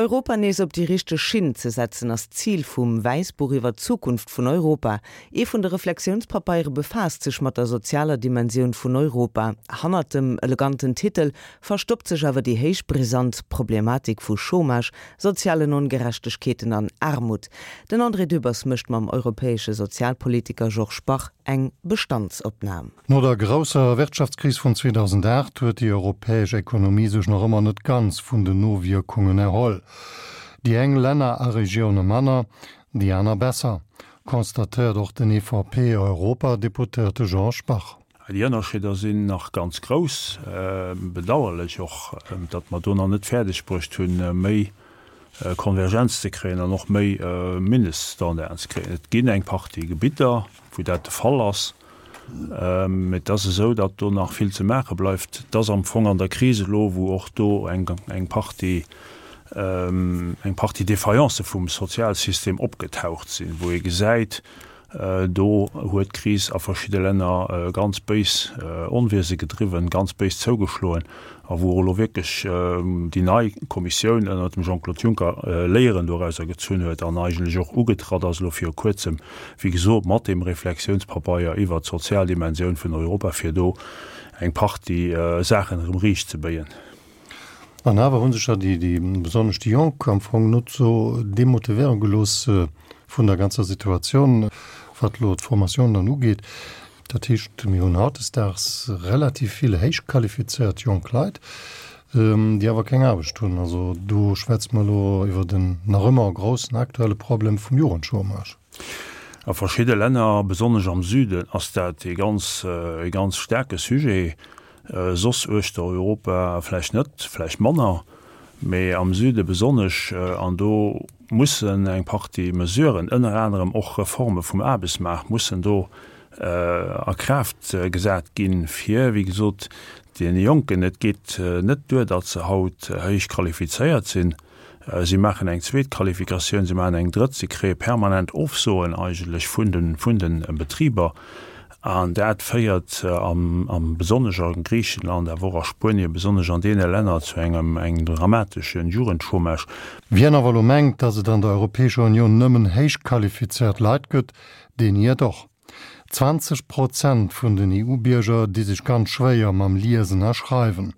Europa nees op déi richteg Schinn ze setzen, ass d'Zil vum Wäissbuch iwwer d'Zukunft vun Europa. Ee vun de Reflexiounspapeiere befaasst sech mat der sozialer Dimensioun vun Europa. Hannert dem eleganten Titel verstoppt sech awer déi héich brisant Problematik vu Chômage, sozialen Ongerechtegkeeten an Aarmut. Den André Dübbers mécht mam europäesche Sozialpolitiker Georges Bach eng Bestandsopnam. No der grousser Wirtschaftskris vun 2008 huet déi europäesch Ekonomie sech nach ëmmer net ganz vun den Nowierkungen erholl. Déi eng Länner a Regioune manner, déi aner besser, constatéiert och den EVP-Europadeputéierte Georges Bach. Déi Ënnerscheeder sinn nach ganz grouss. Bedauerlech och, datt mer do nach net fäerdeg bruecht hunn, méi Konvergenz ze kréien an och méi Mindeststandarden ze kréien. Et ginn eng Partie Gebitter, wou dat de Fall ass. Mee et ass esou, datt do nach vill ze maache bleift. Et ass am Fong an der Kris elo, wou och do eng eng Partie eng Partie Défaillance vum Sozialsystem opgetaucht sinn, wou ee gesäit, do huet d'Kris a verschidde Länner ganz béis Onwiese gedriwwen, ganz béis zougeschloen a wou och elo wierklech déi nei Kommissioun ënnert dem Jean-Claude Juncker Léieren dorauser gezunn huet an eigentlech och ugetratt ass elo viru Kuerzem, wéi gesot, mat deem Reflexiounspabeier iwwert d'sozial Dimensioun vun Europa, fir do eng Partie Saachen erëm riichtzebéien. An awer hu sech jo déi, besonnesch déi Jonk am Fong net esou demotivéiere gelooss vun der ganzer Situatioun, wat elo d'Formatioun dann ugeet. Dat heescht, mir hunn hautdesdaags relativ vill héich qualifizéiert jonk Leit, déi awer keng Aarbecht hunn. Also do schwätze mer elo iwwert en nach ëmmer groussen aktuelle Problem vum Jugendchômage. A verschidde Länner, besonnesch am Süden, ass dat ee ganz, ee ganz staarke Sujet. Soss uechter Europa vläicht net, vläicht manner, mee am Süde besonnesch. An do mussen eng Partie Mesuren, ënner anerem och Reforme vum Aarbechtsmaart, mussen do a Kraaft gesat ginn, fir, wéi gesot, deene Jonken, et geet net duer, datt se haut héich qualifizéiert sinn, si maachen eng zweet Qualifikatioun, si maachen eng drëtt, si kréie permanent Ofsoen eigentlech vun de, vun de Betriber. An dat féiert am, am besonnesch a Griichenland, awer och a Spuenien, besonnesch an deene Länner zu engem, engem dramatesche Jugendchômage. Wien awer elo mengt, datt et an der Europäescher Unioun nëmmen héich qualifizéiert Leit gëtt, deen iert och. 20 Prozent vun den EU-Bierger di sech ganz schwéier mam Liesen a Schreiwen.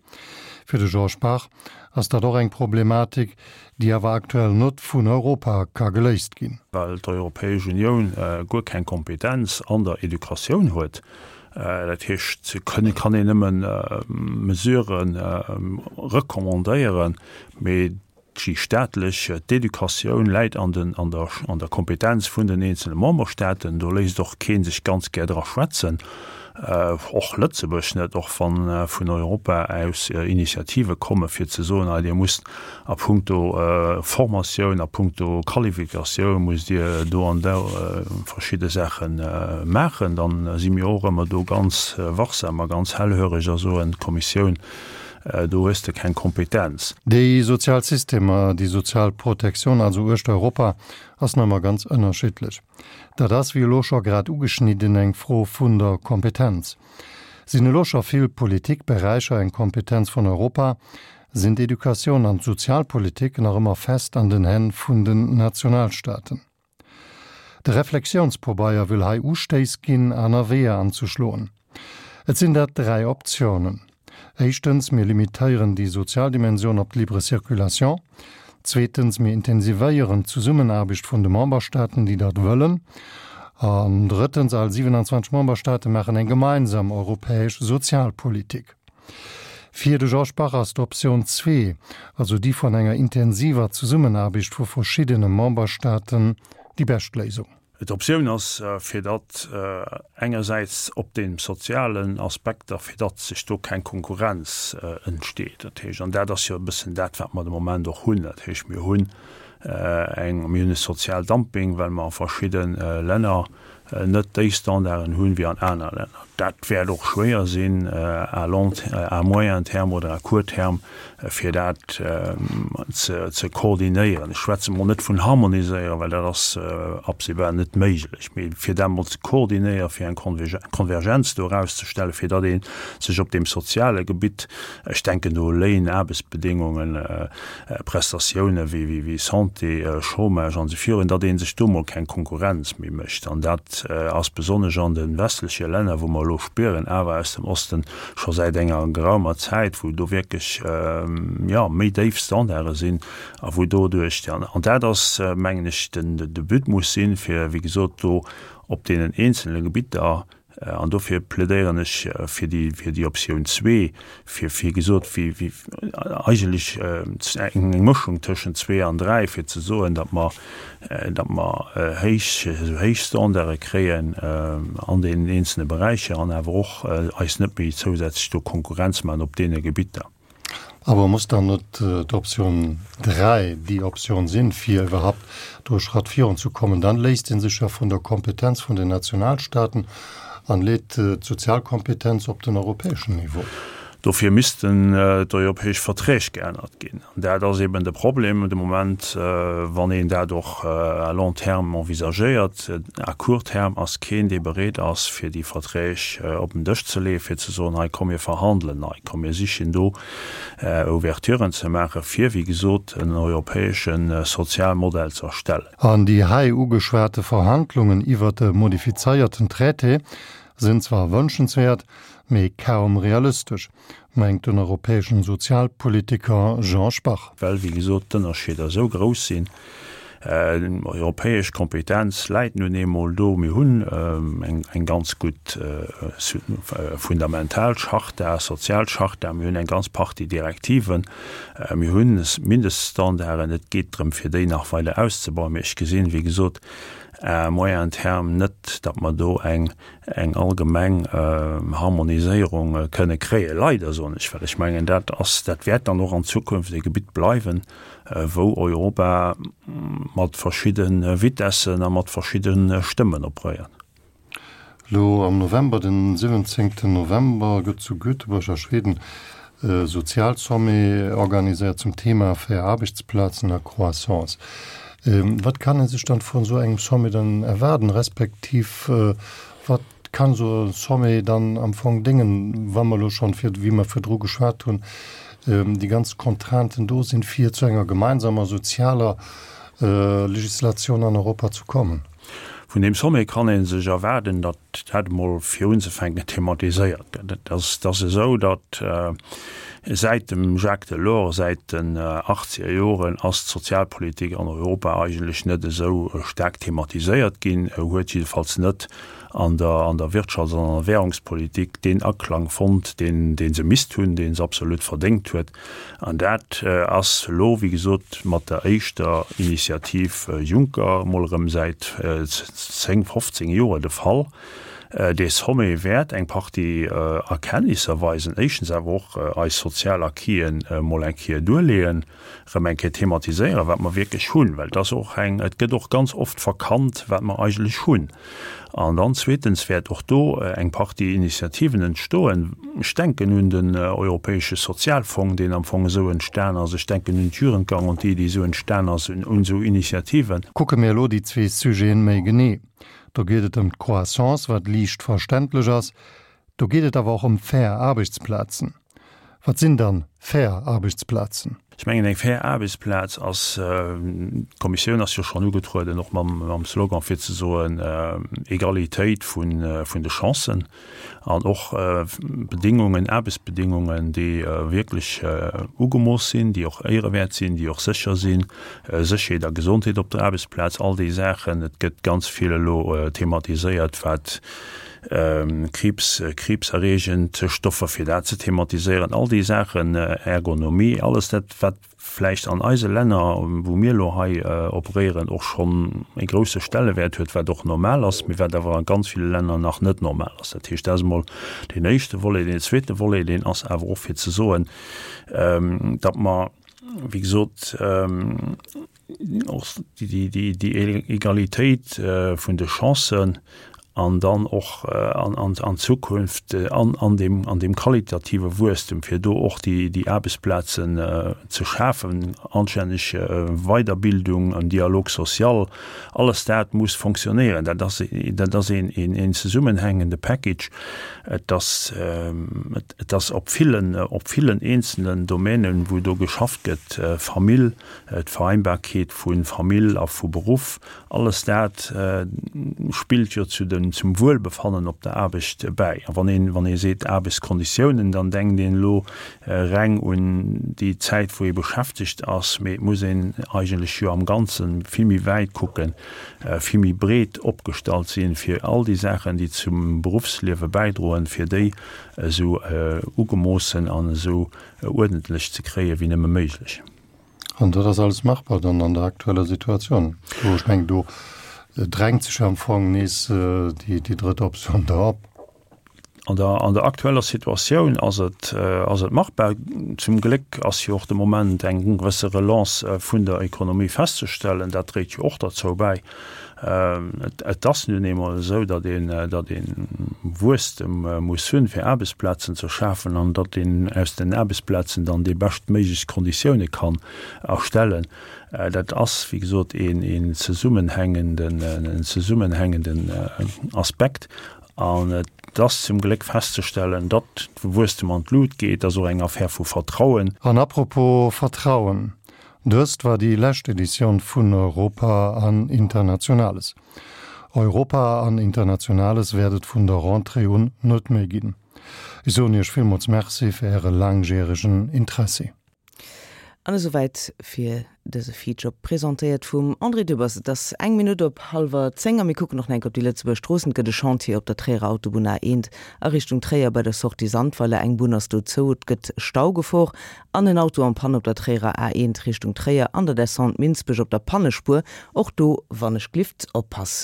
Fir de Georges Bach ass dat och eng Problematik, déi awer aktuell net vun Europa ka geléist ginn. Well d'Europäesch Unioun guer keng Kompetenz an der Educatioun huet. Dat heescht, se kënne, kann een nëmme Mesurë recommandéieren, mee Déi staatlech, d'Educatioun läit an den, an der, an der Kompetenz vun den eenzele Memberstaaten. Do léisst och kee sech ganz gär dra schwätzen, och Lëtzebuerg net, och wa vun Europa aus Initiative komme fir ze soen, hei Dir musst a puncto Formatioun, a puncto Qualifikatioun musst Dir do an do verschidde Saache maachen. Dann si mir och ëmmer do ganz wachsam a ganz hellhöreg a soen, d'Kommissioun Do hues de keng Kompetenz. Déi sozial Systemer, déi sozial Protektioun also uechter Europa ass nach ëmmer ganz ënnerschiddlech. Dat ass, wéi elo scho grad ugeschnidden, eng Fro vun der Kompetenz. Sinn elo scho vill Politikberäicher eng Kompetenz vun Europa, sinn d'Educatioun an d'Sozialpolitik nach ëmmer fest an den Hänn vun den Nationalstaaten. De Reflexiounspobeier wëll hei Ustéiss ginn, aner Weeër anzeschloen. Et sinn dat 3 Optiounen. Éischtens, mir limitéieren déi sozial Dimension op d'libre circulation. Zweetens, mir intensivéieren d'Zesummenaarbecht vun de Memberstaaten, déi dat wëllen. An drëttens, all 27 Memberstaate maachen eng gemeinsam europäesch Sozialpolitik. Fir de Georges Bach ass d'Optioun zwee, also déi vun enger intensiver Zesummenaarbecht vu verschiddene Memberstaaten, déi bescht Léisung. D'Optioun ass, fir datt engersäits op deem sozialen Aspekter, fir datt sech do keng Konkurrenz entsteet, dat heescht, an dat ass jo e bëssen dat, wat mer de Moment och hunn, dat heescht, mir hunn eng, mir hunn e Sozialdumping, well mer a verschidde Länner net déi Standarden hunn wéi an aner Länner. Dat wäert och schwéier sinn à long, à moyen terme oder à court terme, fir dat ze koordinéieren. Ech schwätze mol net vun harmoniséieren, well dat ass absehbar net méiglech, mee fir dat mol ze koordinéieren, fir eng Konvergenz do erauszestellen, fir datt ee sech op deem soziale Gebitt, ech denken do u Léin, Aarbechtsbedéngungen, Prestatioune wéi Santé, Chômage an esou virun, datt ee sech do mol keng Konkurrenz méi mécht. An dat ass besonnesch an de westleche Länner, wou mer elo spieren, awer aus dem Osten scho säit enger geraumer Zäit, wou do wierklech, jo, méi déif Standarde sinn a wou doduerch, an dat ass, mengen ech, den de But muss sinn, fir, wéi gesot, do op deenen eenzele Gebitter An dofir plädéieren ech fir déi, fir déi Optioun zwee, fir, wéi gesot, wéi, wéi eigentlech eng Mëschung tëschent zwee an dräi, fir ze soen, datt mer, datt mer héich, esou héich Standarde kréien an deenen eenzelne Beräicher an awer och eis net méi zousätzlech do Konkurrenz maachen op deene Gebitter. Awer muss dann net d'Option 3 déi Option sinn, fir iwwerhaupt do e Schratt virunzekommen? Dann léisst ee sech jo vun der Kompetenz vun den Nationalstaaten an leet d'Sozialkompetenz op den europäeschen Niveau. Dofir missten d'europäesch Verträg geännert ginn. An dat ass eben de Problem de Moment, wann een dat och à long terme envisagéiert. À court terme ass keen, dee bereet ass, fir déi Verträg op den Dësch ze leeën, fir ze soen, hei komm mir verhandelen nei, komm mir sichen do Ouverturen ze maachen, fir, wéi gesot, en europäesche Sozialmodell ze erstellen. An déi hei ugeschwate Verhandlungen iwwert e modifizéierten Traité sinn zwar wënschenswäert, mee kaum realistesch. Mengt den europäeschen Sozialpolitiker Jean Spach. Well, wéi gesot, d'Ënnerscheeder esou grouss sinn. Europäesch Kompetenz läit nun eemol do. Mir hunn eng ganz gutt fundamental Charta, sozial Charta, mir hunn eng ganz Partie Direktiven, mir hu Mindeststandarden. Et geet drëm, fir déi nach weider auszebauen. Mee ech gesinn, wéi gesot, à moyen terme net, datt mer do eng eng allgemeng Harmoniséierung kënne kréien. Leider, soen ech, well ech mengen, dat ass, dat wäert dann och an Zukunft e Gebitt bleiwen, wou Europa mat verschidde Vitessen a mat verschidde Stëmmen operéiert. Elo am November, den 17 November, gëtt zu Göteborg a Schweden e Sozialsommet organiséiert zum Thema Fair Aarbechtsplazen a Croissance. Wat kann ee sech dann vun esou engem Sommet dann erwaarden, respektiv wat kann esou e Sommet dann am Fong déngen, wa mer elo schonn, wéi mer virdru geschwat hunn, déi ganz Contrainten do sinn, fir zu enger gemeinsamer sozialer Legislatioun an Europa ze kommen? Vun deem Sommet kann ee sech erwaarden, datt dat emol fir unzefänken thematiséiert gëtt. Et ass, et ass esou, datt säit dem Jacques Delors, säit den achtzeger Joren ass d'Sozialpolitik an Europa eigentlech net esou staark thematiséiert ginn, huet jiddefalls net an der, an der Wirtschafts an an der Währungspolitik deen Aklang fonnt, deen, dee se misst hunn, dee se absolut verdéngt huet. An dat ass elo, wéi gesot, mat der éischter Initiativ Juncker emol erëm säit 10, 15 Joer de Fall. Dee Sommet wäert eng Partie Erkenntnisser weisen, éischtens awer och eis sozial Acquisen emol eng Kéier duerleeën, erëm eng Kéier thematiséieren, wat mer wierklech hunn, well et ass och eng, et gëtt och ganz oft verkannt, wat mer eigentlech hunn. An dann zweetens wäert och do eng Partie Initiativen entstoen. Ech denken un den Europäesche Sozialfong, deen am Fong esou entstan ass. Ech denken un d'Jugendgarantie, déi esou entstan ass, un esou Initiativen. Kucke mir elo déi zwee Sujeten méi genee. Do geet et ëm d'Croissance, wat liicht verständlech ass. Do geet et awer och ëm fair Aarbechtsplazen. Wat sinn dann fair Aarbechtsplazen? Ech mengen, eng fair Aarbechtsplaz ass, d'Kommissioun ass jo schonn ugetrueden, och mam Slogan, fir ze soen, Egalitéit vun de Chancen an och Bedingungen, Aarbechtsbedingungen, déi wierklech ugemooss sinn, déi och éierewäert sinn, déi och sécher sinn, Sécherheet a Gesondheet op der Aarbechtsplaz, all déi Saachen. Et gëtt ganz vill elo thematiséiert, wat Kriibs, kriibserreegend Stoffer, fir dat ze thematiséieren, all déi Saachen, Ergonomie, alles dat, wat vläicht an eise Länner, wou mir elo hei operéieren, och schonn e grousse Stellewäert huet, wat och normal ass, mee wat awer a ganz ville Länner nach net normal ass. Dat heescht, dat ass emol deen éischte Volet. Deen zweete Volet, deen ass awer och fir ze soen, datt mer, wéi gesot, och déi Egalitéit vun de Chancen. An dann och an Zukunft an deem qualitative Wuesstem, fir do och déi Aarbechtsplazen ze schafen, anstänneg Weiderbildung, en Dialogue social, alles dat muss fonctionnéieren. Dat ass, dat ass een zesummenhängende Package. Et ass, et ass op villen, op villen eenzelnen Domänen, wou do geschafft gëtt, Famill, d'Vereinbarkeet vu Famill a vu Beruff, Alles dat spillt jo zu den, zum Wuelbefannen op der Aarbecht bäi. A wann een, wann ee seet Aarbechtskonditiounen, dann denkt een elo reng un déi Zäit, wou ee beschäftegt ass, mee et muss een eigentlech jo am Ganze vill méi wäit kucken, vill méi breet opgestallt sinn, fir all déi Saachen, déi zum Beruffsliewe bäidroen, fir déi esou ugemoossen an esou uerdentlech ze kréien, wéi nëmme méiglech. An dat ass alles machbar dann an der aktueller Situatioun? Do, ech mengen, do drängt sech jo am Fong nees déi, déi drëtt Optioun da op. An der, an der aktueller Situatioun ass et, ass et machbar. Zum Gléck ass jo och de Moment eng gewësse Relance vun der Ekonomie festzestellen. Dat dréit jo och derzou bäi. Et ass nun eemol esou, datt een, datt ee Wuesstem muss hunn, fir Aarbechtsplazen ze schafen an datt een aus den Aarbechtsplazen dann déi beschtméiglechst Konditioune kann erstellen. Dat ass, wéi gesot, een, een zesummenhängenden, en zesummenhängenden Aspekt. An et ass zum Gléck festzestellen, datt de Wuesstem an d'Lut geet. Dat ass och eng Affär vu Vertrauen. An apropos Vertrauen, Dëst war déi lescht Editioun vun Europa an Internationales. Europa an Internationales wäert et vun der Rentrée un net méi ginn. Ech soen Iech villmools Merci fir Äre laangjäregen Interessi. An esouwäit fir dëse Feature, presentéiert vum André Dübbers. Et ass eng Minutt op hallwer 10 a mir kucken och nach eng Kéier op déi Lëtzebuerger Stroossen. Et gëtt e Chantier op der Tréierer Autobunn A1 a Richtung Tréier bei der Sortie Sandweiler. Eng Bunn ass do zou, et gëtt Staugefor an en Auto en panne op der Tréierer A1 Richtung Tréier an der Descente Minsbech op der Pannespuer. Och do wann ech glift oppassen.